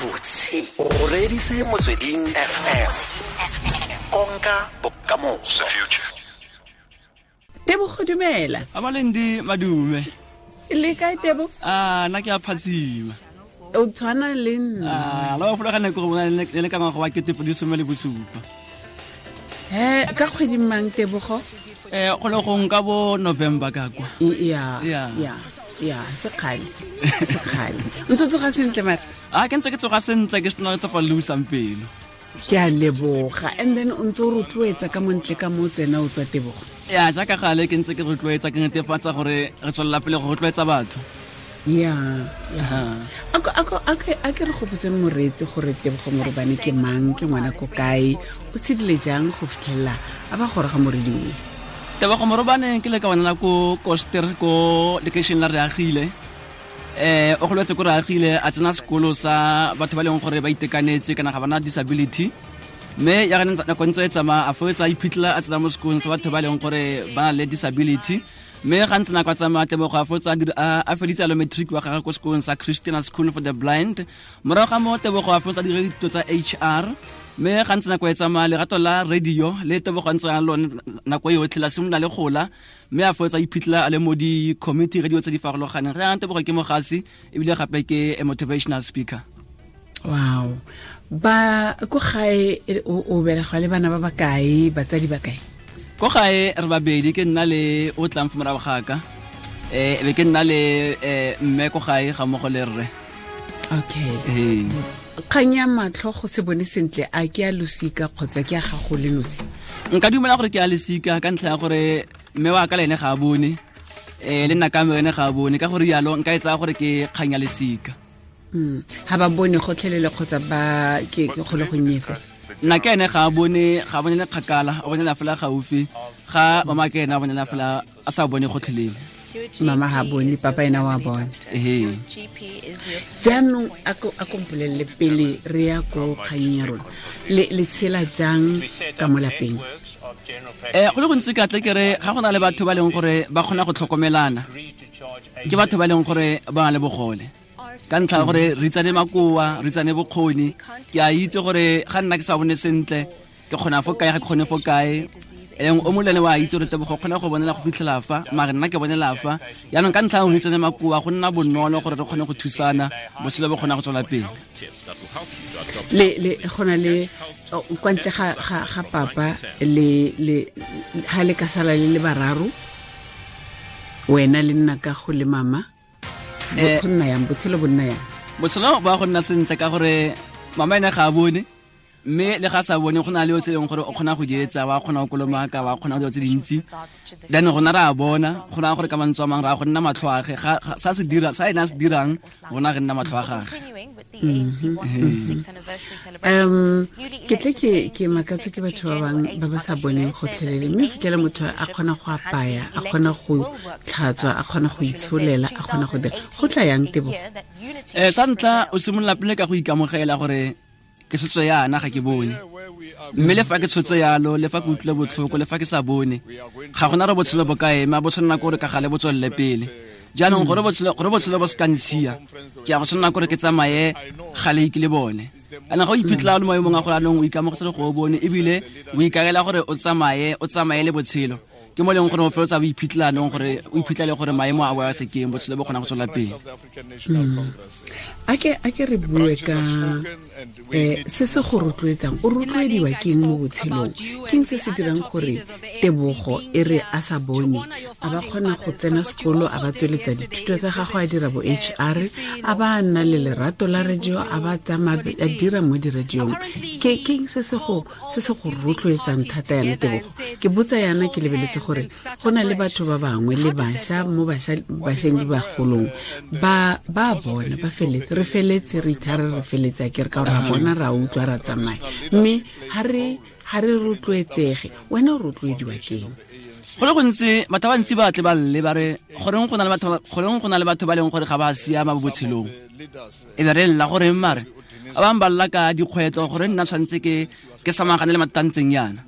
Gabotse o reeditse Motsweding FM, konka bokamoso. Tebogo, dumela. Abalendi, madume. Le kae, Tebo? A nna ke a phatsima. O tshwana le nna. A la gopola ga nako go bona le le ka ngwaga wa 2017. He, ka kgwedi mang, Tebogo? Go le gong ka bo November ka kwa. Ya. Ya ya, sekgale sekgale. Ntse o tsoga sentle mare? A ke ntse ke tsoga sentle, ke sena letsapa le usang pelo. Ke a leboga. And then o ntse o rotloetsa ka montle ka mo tsena o tswa, Tebogo? Ya, jaaka gale ke ntse ke rotloetsa, ke netefatsa gore re tswelela pele go rotloetsa batho. Ya, a ke re gopotseng moreetsi gore Tebogo Morobane ke mang, ke ngwana ko kae, o tshedile jang go fitlhelela a ba goroga mo radiong? Tebogo Morobane ke le ka bonela ko Koster, ko lekeišene la Reagile. O goletse ko Reagile, a tsena sekolo sa batho ba e leng gore ba itekanetse kana ga bana disability, mme ya gane nako ntse e tsamaya a foetsa a iphitlhela a tsena mo sekolong sa batho ba e leng gore ba na le disability. Mme ga ntse nako a tsamaya, Tebogo a fotsa a feditse alo matric wa gagwe ko sekolong sa Christian School for the Blind. Morago ga mo, Tebogo a fotsa dira dithuto tsa HR. Mme ga ntse nako e tsamaya, lerato la radio le Tebogo a ntse a lone nako yotlhe la simolola le gola, mme a fotsa iphitlhela a le mo di-community radio tse di farologaneng. Re yang, Tebogo ke mogasi ebile gape ke a motivational speaker. Wow. Ba ko gae o belegwa le bana ba ba kae, batsadi ba kae? Ko gae re babedi, ke nna le o tlang fo morago ga ka, be ke nna le mme ko gae ga mmogo le rre. Okay. Kgang ya matlho, go se bone sentle, a ke a losika kgotsa ke a gago le nosi? Nka dumela gore ke a losika, ka ntlha ya gore mme wa ka le ene ga a bone, le nna ka mme ene ga a bone. Ka gore yalo nka e tsaya gore ke kgang ya lesika. Ha ba bone gotlhelele kgotsa ba ke kgole go nnye fela? Nna ke ene ga a bone, ga a bonele kgakala, o bonela fela gaufi. Ga mama ke ene a bonela fela, a sa bone gotlhelele. Mama ha bone, papa ena wa bone. Ee. Jaanong a ko mpolelele pele re ya ko kganyeng ya rona, le tshela jang ka mo lapeng? Go le gontsi ka tle ke re ga go na le batho ba leng gore ba kgona go tlhokomelana, ke batho ba leng gore ba na le bogole, ka ntlha ya gore re itsane makoa, re itsane bokgoni. Ke a itse gore ga nna ke sa bone sentle ke kgona fo kae, ga ke kgone fo kae. Eleng o molene wa itse gore Tebogo kgona go bonela go fitlhela fa, mare nna ke bonela fa. Yaanong ka ntlha ya gore itsane makoa, go nna bonolo gore re kgone go thusana, botshelo bo kgona go tswela pele. Le gona le kwa ntle ga papa le ha le ka sala le le bararo, wena le nna ka go le mama, go nna yang botshelo, bo nna yang? Botshelo ba go nna sentle ka gore mama ene ga a bone, mme le ga sa bone go na le tse leng gore o kgona go di etsa, wa kgona go kolomaka, wa kgona go dilo tse dintsi. Then rona re a bona, go na gore ka mantswe a mangwe ra go nna matlho age sa se dira, sa ene a se dirang, rona re nna matlho a gage. Ke tle ke makatswe ke batho ba bangwe ba ba sa boneng gotlhelele, mme fitlhela motho a kgona go apaya, a kgona go tlhatswa, a kgona go itsholela, a kgona go dira. Go tla yang, Tebo? Sa ntlha o simolola pele ka go ikamogela gore ke tshotso yana, ga ke bone, mme le fa ke tshotso yalo, le fa ke utlwile botlhoko, le fa ke sa bone, ga gona re botshelo bo ka ema, bo tshwanela kore ka gale bo tswelele pele. Jaanong gore botshelo bo se ka ntshiya, ke ya go tshwanela kore ke tsamaye gale ke le bone. Kana ga o iphitlhela o le maemong a gore anong o ikamogetse go o bone, ebile o ikaela gore o tsamaye, o tsamaye le botshelo, ke mo leng gore o feletsa o iphitlhela anong gore o iphitlhele gore maemo a boa sekeng, botshelo bo kgona go tswela pele. A ke re bue ka se se go rotloetsang. O rotloediwa keng mo botshelong? Keng se se dirang gore Tebogo e re a sa bone a ba kgona go tsena sekolo, a ba tsweletsa dithuto tsa gagwe, a dira bo HR, a ba nna le lerato la radio, a ba tsamaya a dira mo diradiong? Ke keng se se go rotloetsang thata yana, Tebogo? Ke botsa yana ke lebeletse gore go na le batho ba bangwe le bašwa mo bašweng le bagolong ba ba bona ba feletse, re feletse re ithare, re feletse a ke re ka gore ra bona, ra utlwa, ra tsamaya, mme ha re rotloetsege. Wena o rotloediwa keng? Go le gontsi batho ba bantsi ba tle ba lle ba re goreng go na le batho ba leng gore ga ba siama mo botshelong, e be re lla goreng. Mare Ba bangwe ba lla ka dikgwetlho gore nna tshwanetse ke samagane le mathata a ntseng yana,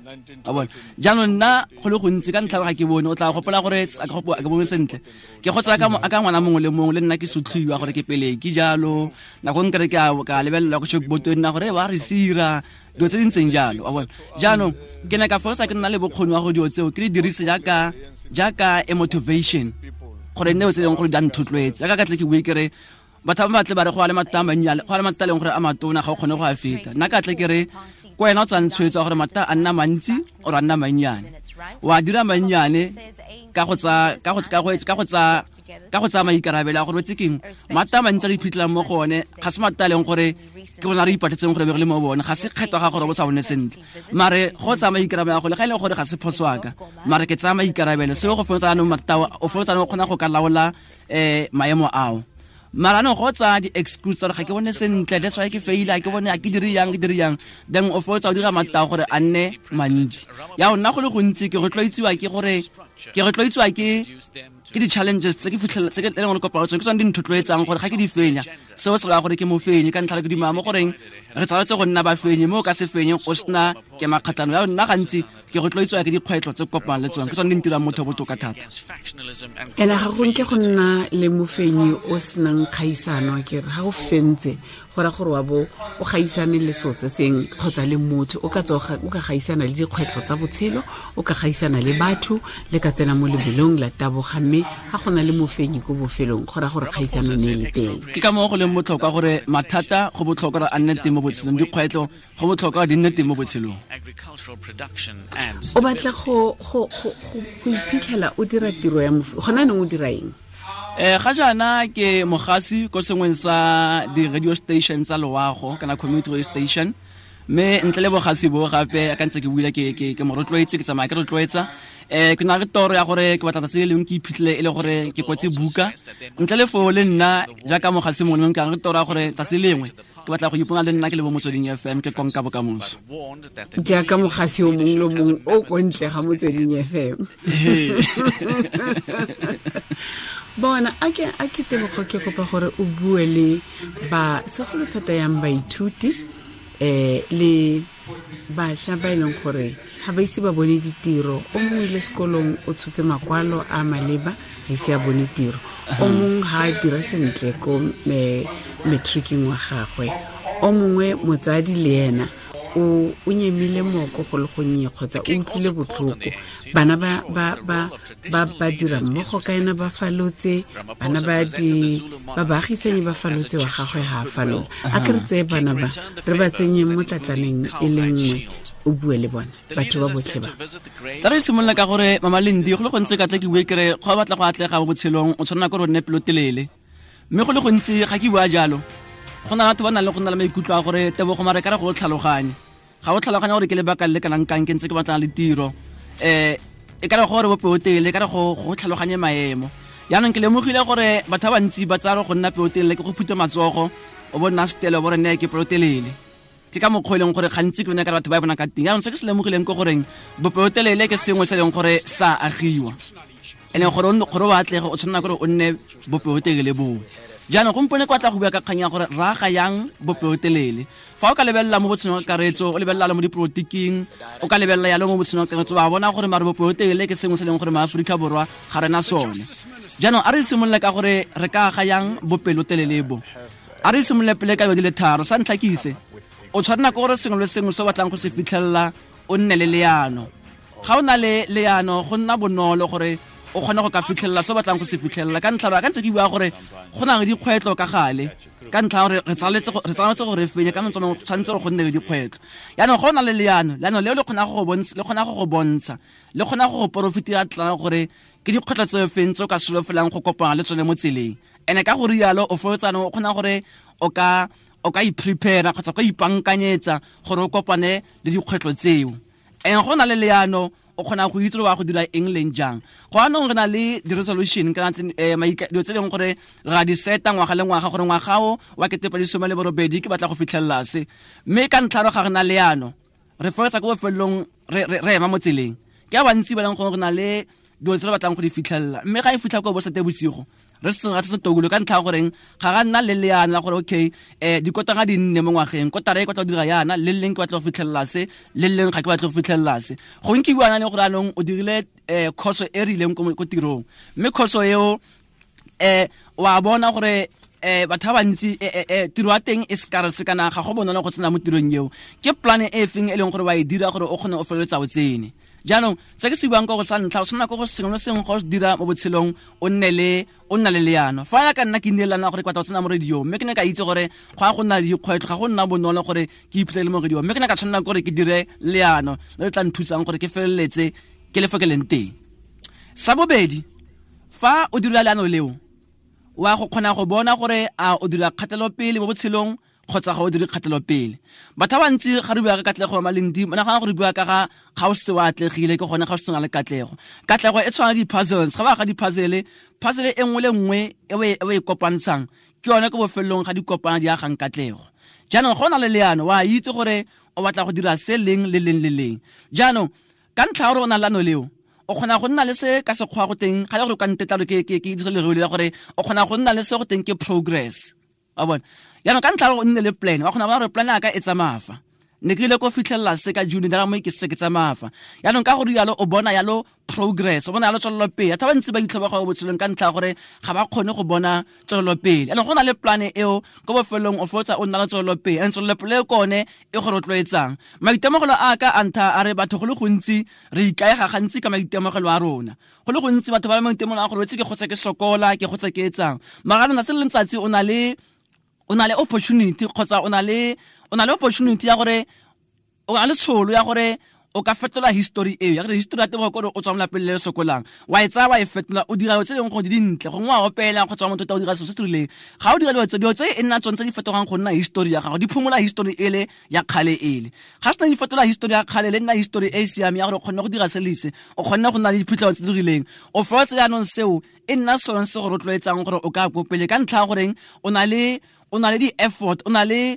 a bona. Jaanong nna go le gontsi ka ntlha ga ke bone, o tla gopola gore a ke bone sentle, ke go tsaya ka ngwana mongwe le mongwe, le nna ke sotlhiwa gore ke pele ke jalo. Nako nkere ke ka lebelela go shokboto nna gore ba re sira dilo tse di ntseng jalo, wa bona. Jaanong ke ne ka feleletsa ke nna le bokgoni wa go dilo tseo ke di dirise jaaka a motivation, gore nne tse e leng gore di a nthotloetse. Jaaka ka tle ke bue ke re batho ba batle ba re go a le mathata a mannyane, go a le mathata a leng gore a matona ga o kgone go a feta. Nna ka tle ke re ko wena o tsayang tshwetso ya gore mathata a nna mantsi or a nna mannyane, wa dira mannyane ka go tsa, ka go, ka go, ka go tsa, ka go tsaya maikarabelo a gore o tse keng. Mathata a mantsi a re iphitlhelang mo go one ga se mathata a leng gore ke rona re ipatetseng gore be re le mo bone, ga se kgetho ga gore bo sa bone sentle, mare go tsaya maikarabelo a go le ga e le gore ga se phoso wa ka, mare ke tsaya maikarabelo. Seo go feleletsa jaanong mathata ao, o feleletsa jaanong o kgona go ka laola, maemo ao. Mara anong go tsaya di-excuse tsa gore ga ke bone sentle, that's why ke faile, ga ke bone, ga ke dire yang, ke dire yang, then o feleletsa o dira mathata a gore a nne mantsi. Ya nna go le gontsi ke rotloetsiwa ke gore, ke rotloetsiwa ke, ke di-challenges tse ke fitlhela, tse ke leng gore kopana le tsone, ke tsone di nthotloetsang gore ga ke di fenya, seo se raya gore ke mofenyi. Ka ntlha ke dumela mo goreng re tshwanetse go nna bafenyi, mo o ka se fenyeng o sena ke makgatlhano. Ya nna gantsi ke rotloetsiwa ke dikgwetlho tse ke kopanang le tsone, ke tsone di ntirang motho botoka thata. Ene ga go nke go nna le mofenyi o senang kgaisano, ke re ga o fentse go raya gore wa bo o gaisane le selo se seng kgotsa le motho, o ka tswa o ka gaisana le dikgwetlho tsa botshelo, o ka gaisana le batho, le ka tsena mo lebelong la taboga, mme ga go na le mofenyi ko bofelong go raya gore kgaisano ne e le teng. Ke ka moo go leng botlhokwa gore mathata go botlhokwa gore a nne teng mo botshelong, dikgwetlho go botlhokwa di nne teng mo botshelong. O batla go iphitlhela o dira tiro ya mofu, gona neng o dira eng? Ga jaana ke mogasi ko sengweng sa di-radio station tsa loago, kana community radio station, mme ntle le bogasi bo gape ka ntse ke buile ke mo rotloetse, ke tsamaya ke rotloetsa. Ke na le toro ya gore ke batla tsatsi le lengwe ke iphitlhele e le gore ke kwetse buka. Ntle le foo le nna jaaka mogasi mongwe le mongwe, ke na le toro ya gore tsatsi lengwe ke batla go ipona le nna ke le bo Motsweding FM, ke konka bokamoso. Jaaka mogasi o mongwe le mongwe o ko ntle ga Motsweding FM. Bona, a ke Tebogo, ke kopa gore o bue le ba segolo thata yang baithuti, le bašwa ba e leng gore ga ba ise ba bone ditiro. O mongwe ile sekolong o tshotse makwalo a maleba, ga ise a bone tiro. O mongwe ga a dira sentle ko matricing wa gagwe. O mongwe motsadi le ena o nyemile moko go le gonnye kgotsa o utlwile botlhoko. Bana ba dira mmogo ka ena ba falotse, bana ba di, ba baagisanyi ba falotse, wa gagwe ga a falola. A ke re tseye bana ba, re ba tsenye mo tlatlaneng e le nngwe, o bue le bona, batho ba botlhe ba. Tla re simolola ka gore Mama Lindi, go le gontsi ka tle ke bue ke re, go batla go atlega mo botshelong, o tshwanela ke gore o nne pelotelele. Mme go le gontsi ga ke bua jalo, go na le batho ba nang le go nna le maikutlo a gore Tebogo mare ka re go tlhaloganye. Ga o tlhaloganya gore ke lebaka le le kanang kang ke ntse ke batlana le tiro. E ka re gore bo pelotelele, e ka re go tlhaloganye maemo. Jaanong ke lemogile gore batho ba bantsi ba tsaya go nna pelotelele ke go phutha matsogo, o bo nna setele, o bo re nne ke pelotelele. Ke ka mokgwa e leng gore gantsi ke yone ka batho ba e bonang ka teng. Jaanong se ke se lemogileng ke goreng bopelotelele ke sengwe se e leng gore sa agiwa. E leng gore gore o atlege, o tshwanela gore o nne bopelotelele boo. Jaanong gompieno ke batla go bua ka kgang ya gore ra aga yang bopelotelele. Fa o ka lebelela mo botshelong ka kakaretso, o lebelela le mo dipolotiking, o ka lebelela yalo mo botshelong ka kakaretso, wa bona gore mare bopelotelele ke sengwe se e leng gore maAforika Borwa ga rena sone. Jaanong a re simolole ka gore re ka aga yang bopelotelele bo. A re simolole pele ka dilo di le tharo. Sa ntlha ke ise, o tshwanela ke gore sengwe le sengwe se o batlang go se fitlhelela o nne le leano. Ga o na le leano, go nna bonolo gore o kgone go ka fitlhelela se o batlang go se fitlhelela. Ka ntlha ya ka ntse ke bua gore go na le dikgwetlho ka gale, ka ntlha ya gore re tshwanetse gore re fenye, ka mantswe a mangwe go tshwanetse gore go nne le dikgwetlho. Jaanong ga o na le leano, leano leo le kgona go go bontsha, le kgona go go bontsha, le kgona go go porofitira tla gore ke dikgwetlho tse feng tse o ka solofelang go kopana le tsone mo tseleng. Ene ka go rialo o feleletsa o kgona gore o ka i-prepare kgotsa o ka ipankanyetsa gore o kopane le dikgwetlho tseo. Ene go na le leano, o kgona go itse gore wa go dira eng leng jang. Go anong re na le di-resolution kana tse, dilo tse e leng gore re a di seta ngwaga le ngwaga gore ngwaga o wa kete pedi some le borobedi ke batla go fitlhelela se. Mme ka ntlha ya gore ga re na leano, re feleletsa ko bofelelong re ema mo tseleng. Ke ba bantsi ba leng gore re na le Dilo tse re batlang go di fitlhelela, mme ga e fitlha ko bo sete bosigo re seng ga se tokolo ka ntlha ya goreng ga ga nna le leano la gore okay, dikotanga di nne mo ngwageng, kotara e ke batla go dira yana, le leng ke batla go fitlhelela se, le leng ga ke batla go fitlhelela se. Gongwe ke bua le gore anong o dirile course e rileng ko tirong, mme course eo wa bona gore batho ba bantsi tiro ya teng e scarce kana ga go bonolo go tsena mo tirong eo. Ke plan e feng e leng gore wa e dira gore o kgone o feleletsa o tsene? Jaanong se ke se buang ka go sa ntlha, o tshwanela ke go sengwe le sengwe go se dira mo botshelong o nne le o nna le leano. Fa ya ka nna ke nnile leano gore ke batla go tsena mo radio, mme ke ne ka itse gore go ya go nna le dikgwetlho, ga go nna bonolo gore ke iphitlhele mo radio, mme ke ne ka tshwanela gore ke dire leano le le tla nthusang gore ke feleletse ke le fo ke leng teng. Sa bobedi, fa o dira leano leo, wa go kgona go bona gore a o dira kgatelopele mo botshelong kgotsa ga o dire kgatelopele. Batho ba bantsi ga re bua ka katlego ya Malindi, ba nagana gore re bua ka ga o setse o atlegile, ke gone ga o setse o na le katlego. Katlego e tshwana le di-puzzles, ga ba ga di-puzzle, puzzle e nngwe le nngwe e o e kopantshang, ke yone ko bofelong ga di kopana di agang katlego. Jaanong go na le leano, wa itse gore o batla go dira se leng le leng le leng. Jaanong ka ntlha ya gore o na le leano leo, o kgona go nna le se ka sekgwa go teng, ga le gore o ka ntetla gore ke dire lereo le la gore o kgona go nna le se go teng ke progress. Wa bona? Jaanong ka ntlha ya gore o nne le plan, wa kgona go bona gore plan ya ka e tsamaya fa. Ne ke ile ko fitlhelela se ka June, dara mo ke se ke tsamaya fa. Jaanong ka gore jalo o bona jalo progress, o bona jalo tswelelopele. Batho ba bantsi ba itlhoboga mo botshelong ka ntlha ya gore ga ba kgone go bona tswelelopele. Jaanong go na le plan eo, ko bofelong o fotsa o nna le tswelelopele. And tswelelopele e kone e go rotloetsang. Maitemogelo a ka a ntha a re batho go le gontsi re ikaega gantsi ka maitemogelo a rona. Go le gontsi batho ba le maitemogelo a gore wetse ke gotse ke sokola, ke gotse ke etsang. Mara letsatsi le letsatsi o na le, o na le opportunity kgotsa o na le, o na le opportunity ya gore o na le tsholo ya gore o ka fetola history eo, ya gore history ya teng gore o tswa mo lapeng le le sokolang, wa e tsaya wa e fetola, o dira dilo tse dingwe gore di dintle, gongwe wa opela kgotsa wa motho o dira selo se se rileng. Ga o dira dilo tse, dilo tse e nna tsone tse di fetogang go nna history ya gago, di phomola history ele ya kgale ele. Ga sena di fetola history ya kgale, le nna history e e siameng ya gore o kgonne go dira se le se, o kgonne go nna le diphitlhelo tse di rileng. O fotse jaanong seo e nna sone se go rotloetsang gore o ka ko pele ka ntlha ya goreng o na le, o na le di-effort, o na le,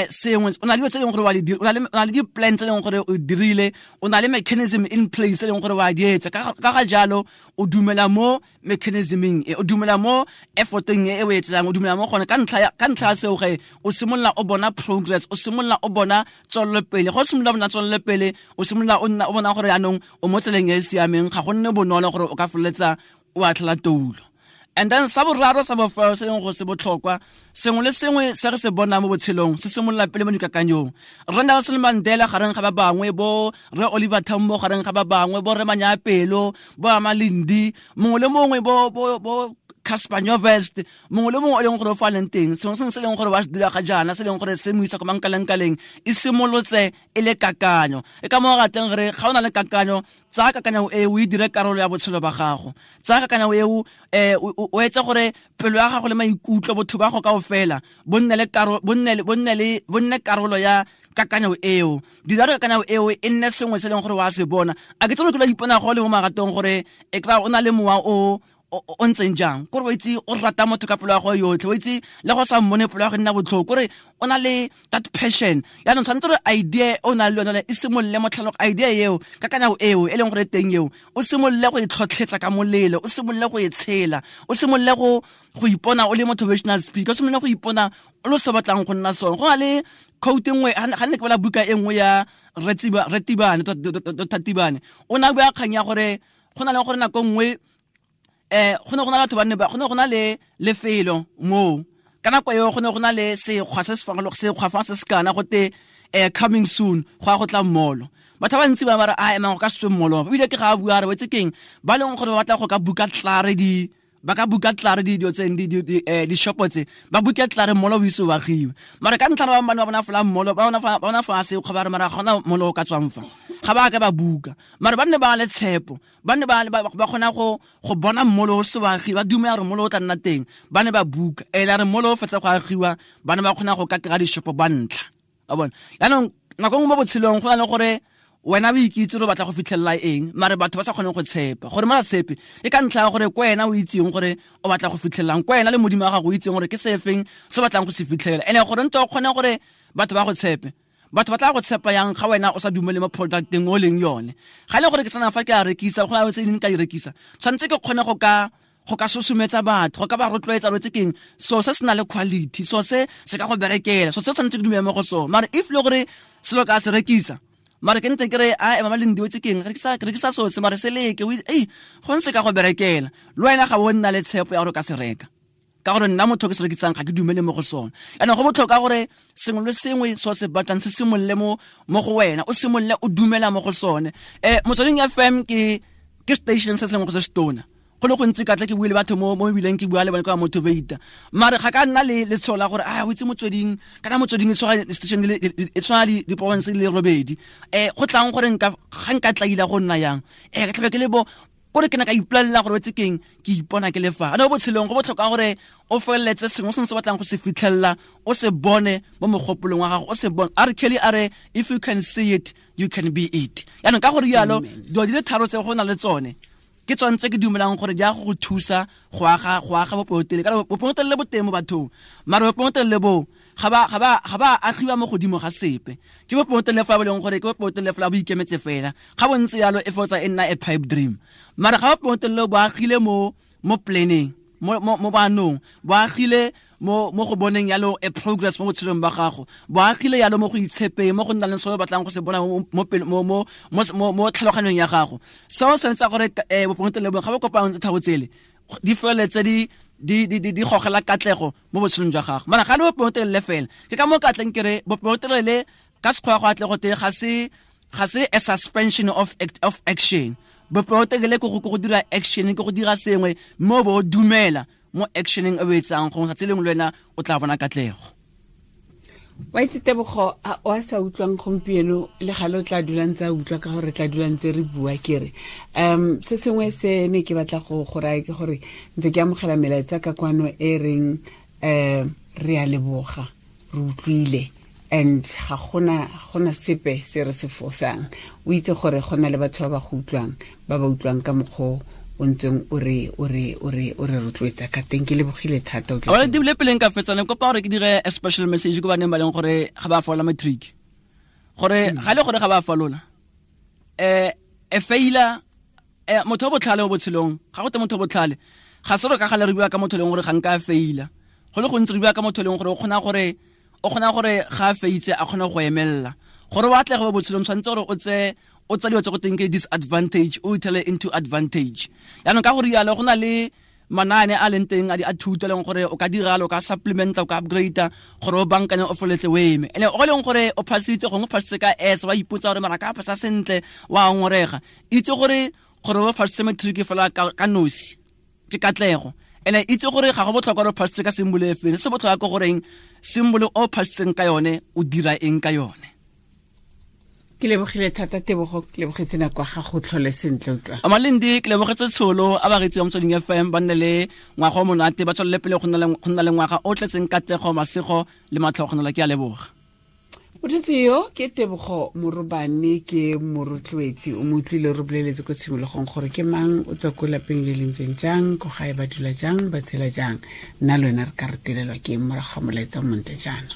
sengwe, o na le dilo tse e leng gore wa di dira, o na le di-plan tse e leng gore o dirile, o na le mechanism in place e leng gore wa di etsa. Ka ga jalo, o dumela mo mechanisming e, o dumela mo efforteng e o e etsang, o dumela mo gone. Ka ntlha ya seo ge, o simolola o bona progress, o simolola o bona tswelelopele. Ga o simolola o bona tswelelopele, o simolola o nna o bona gore jaanong o mo tseleng e e siameng, ga go nne bonolo gore o ka feleletsa o atlhela toulo. And then sa boraro sa bofelo se leng go se botlhokwa, sengwe le sengwe se re se bonang mo botshelong se simolola pele mo dikakanyong. Rre Nelson Mandela gareng ga ba bangwe, bo Rre Oliver Tambo gareng ga ba bangwe, bo Rre Manyapelo, bo Amalindi, mongwe le mongwe, bo Cassper Nyovest, mongwe le mongwe o leng gore o fa leng teng, sengwe sengwe se leng gore wa se dira ga jaana, se leng gore se mo isa ko mankalengkaleng, e simolotse e le kakanyo. E ka mo rateng re ga o na le kakanyo, tsaya kakanyo e o e dire karolo ya botshelo ba gago. Tsaya kakanyo e o etse gore pelo ya gago le maikutlo, botho ba gago kaofela, bo nne le karo-, bo nne le, bo nne le, bo nne karolo ya kakanyo eo. Dira gore kakanyo eo e nne sengwe se leng gore wa se bona. A ke tsone ke la ipona go le mo maratong gore e kry-a o na le mowa o, o ntseng jang, kore o itse o rata motho ka pelo ya gago yotlhe, o itse le go sa mmone pelo ya go nna botlhoko, kore o na le that passion. Jaanong tshwanetse gore idea o nang le yone e simolole mo tlhalog-, idea eo, kakanyo eo e leng gore teng eo, o simolole go e tlhotlhetsa ka molelo, o simolole go e tshela, o simolole go ipona o le motivational speaker, o simolole go ipona o le se batlang go nna sone. Go na le quote nngwe, ga ne ke bala buka e nngwe ya Rre Tibane, Doctor Tibane, o ne a bua kgang ya gore go na le gore nako nngwe, go ne go na le batho ba ne ba, go ne go na le lefelo moo. Ka nako eo go ne go na le sekgwa se se farolog-, sekgwa fa se se kana go te, coming soon, go ya go tla mmolo. Batho ba bantsi ba ba re, a, emang go ka se tswe mmolo. Ebile ke ga a bua a re, wetse keng? Ba leng gore ba batla go ka buka tlare di, ba ka buka tlare di dilo tse, di, di, di, di-shopo tse, ba buke tlare mmolo o ise o agiwe. Mara ka ntlha ya ba bangwe ba bona fela mmolo, ba bona fa, ba bona fa sekgwa ba re, mara ga gona mmolo o ka tswang fa. Ga ba ka ba buka. Mara ba nne ba le tshepo, ba nne ba, ba, ba kgona go bona mmolo o se wa agiwa, ba dumela gore mmolo o tla nna teng, ba ne ba buka. E la re mmolo o fetsa go agiwa, ba ne ba kgona go ka kry-a dishopo ba ntlha. Wa bona? Jaanong, nako nngwe mo botshelong go na le gore wena o ikitse gore o batla go fitlhelela eng, mare batho ba sa kgoneng go tshepa. Gore ba sa tshepe, ke ka ntlha ya gore ko wena o itseng gore o batla go fitlhelelang, ko wena le Modimo wa gago o itseng gore ke se feng se o batlang go se fitlhelela. Ene gore ntse o kgone gore batho ba go tshepe, Batho ba tla go tshepa yang ga wena o sa dumele mo producteng o leng yone. Ga le gore ke tsena fa ke a rekisa, go na le tse dingwe ka di rekisa, tshwanetse ke kgone go ka susumetsa batho, go ka ba rotloetsa lo tse keng, so se se na le quality, so se se ka go berekela, so se tshwanetse ke dumele mo go sone. Mare if le gore selo ka se rekisa, mare ke ntse ke re a ema le ndiwe tse keng, re rekisa so se, mare se leke, ei go ntse ka go berekela, le wena ga o nna le tshepo ya gore o ka se reka, ka gore nna motho ke se rekisang ga ke dumele mo go sone. Yaanong go botlhokwa gore sengwe le sengwe so se batlang se simolole mo go wena, o simolole o dumela mo go sone. Motsweding FM ke station se se leng go se setona. Go le gontsi ka tla ke bue le batho mo ebileng ke bua le bone ka motivate, mare ga ka nna le letsholo la gore a o itse motsweding, kana motsweding e tshwana station e tshwana le di-province di le robedi, go tlang gore nka ga nka tlaila go nna yang, ke tlabe ke le bo kore ke ne ka ipolelela gore wetse keng, ke ipona ke le fa. Ano botshelong go botlhokwa gore o feleletse sengwe se se batlang go se fitlhelela, o se bone mo mogopolong wa gago, o se bone. A re Kelly a re, if you can see it, you can be it. Yaanong ka gore jalo dilo di le tharo tse go na le tsone, ke tsone tse ke dumelang gore di a go thusa go aga bopelotelele. Ka bopelotelele bo teng mo bathong, mare bopelotelele bo ga ba agiwa mo godimo ga sepe. Ke bopelotelele fa bo leng gore ke bopelotelele fela bo ikemetse fela, ga bo ntse yalo e fotsa e nna a pipe dream. Mare ga bopelotelele bo agile mo planning, mo banong, bo agile mo go boneng yalo a progress mo botshelong ba gago, bo agile yalo mo go itshepeng, mo go nna le se o batlang go se bona mo tlhaloganyong ya gago. Seo se ntse gore bopelotelele bo ga bo kopang tse tharo tsele di feleletse di gogela katlego mo botshelong jwa gago. Mara ga le bopelotelele fela, ke ka mo ka tleng ke re bopelotelele ka sekgwa go atle go te ga se a suspension of action. Bopelotelele ke go dira action, ke go dira sengwe mo bo dumela mo actioneng e o etsang, gongwe tsatsi lengwe le wena o tla bona katlego. Wa itse Tebogo, o a sa utlwang gompieno le gale o tla dulang tsa utlwa, ka gore re tla dulang tse re bua. Ke re se sengwe se ne ke batla go raya ke gore ntse ke amogela melaetsa ka kwano e reng re a leboga, re utlwile, and ga gona sepe se re se fosang. O itse gore go na le batho ba ba go utlwang, ba ba utlwang ka mokgwa o ntseng o re rotloetsa ka teng. Ke lebogile thata. O tla dibile pele nka fetsana, kopa gore ke dire a special message ko baneng ba leng gore ga ba fola matric, gore ga le gore ga ba falola, e faila motho o botlhale mo botshelong. Ga go te motho o botlhale ga se re ka gale re bua ka motho leng gore ga nka faila, go le gontsi re bua ka motho leng gore o kgona gore ga a feitse a kgona go emelela. Gore o atlege mo botshelong tshwanetse gore o tse o tsa dilo tse go teng ke disadvantage, o ithele into advantage. Yaanong ka gore yalo go na le manaane a leng teng a thuto leng gore o ka diralo, o ka supplementa, o ka upgrade gore o bankanye o feletse o eme. Ene o leng gore o phasitse, gongwe o phasitse ka S, wa ipotsa gore mara ka phasa sentle, wa ngorega. Itse gore o phasitse matric fela ka nosi ke katlego. Ene itse gore ga go botlhokwa gore o phasitse ka symbol e feng, se botlhokwa ke goreng symbol o phasitseng ka yone o dira eng ka yone. Ke lebogile thata Tebogo, ke lebogetse nako ya gago, tlhole sentle utlwa. Amalindi, ke lebogetse tsholo a bareetsi ba Motsweding FM, ba nne le ngwaga o monate, ba tswelele pele go nna le ngwaga o tletseng katlego, masego le matlhogonolo. Ke a leboga. Motho yo ke Tebogo Morobane, ke morotloetsi, o mo utlwile re boleletse ko tshimologong gore ke mang, o tswa ko lapeng le le ntseng jang, ko gae ba dula jang, ba tshela jang. Nna le wena re ka retelelwa ke morago ga molaetsa o montle jaana.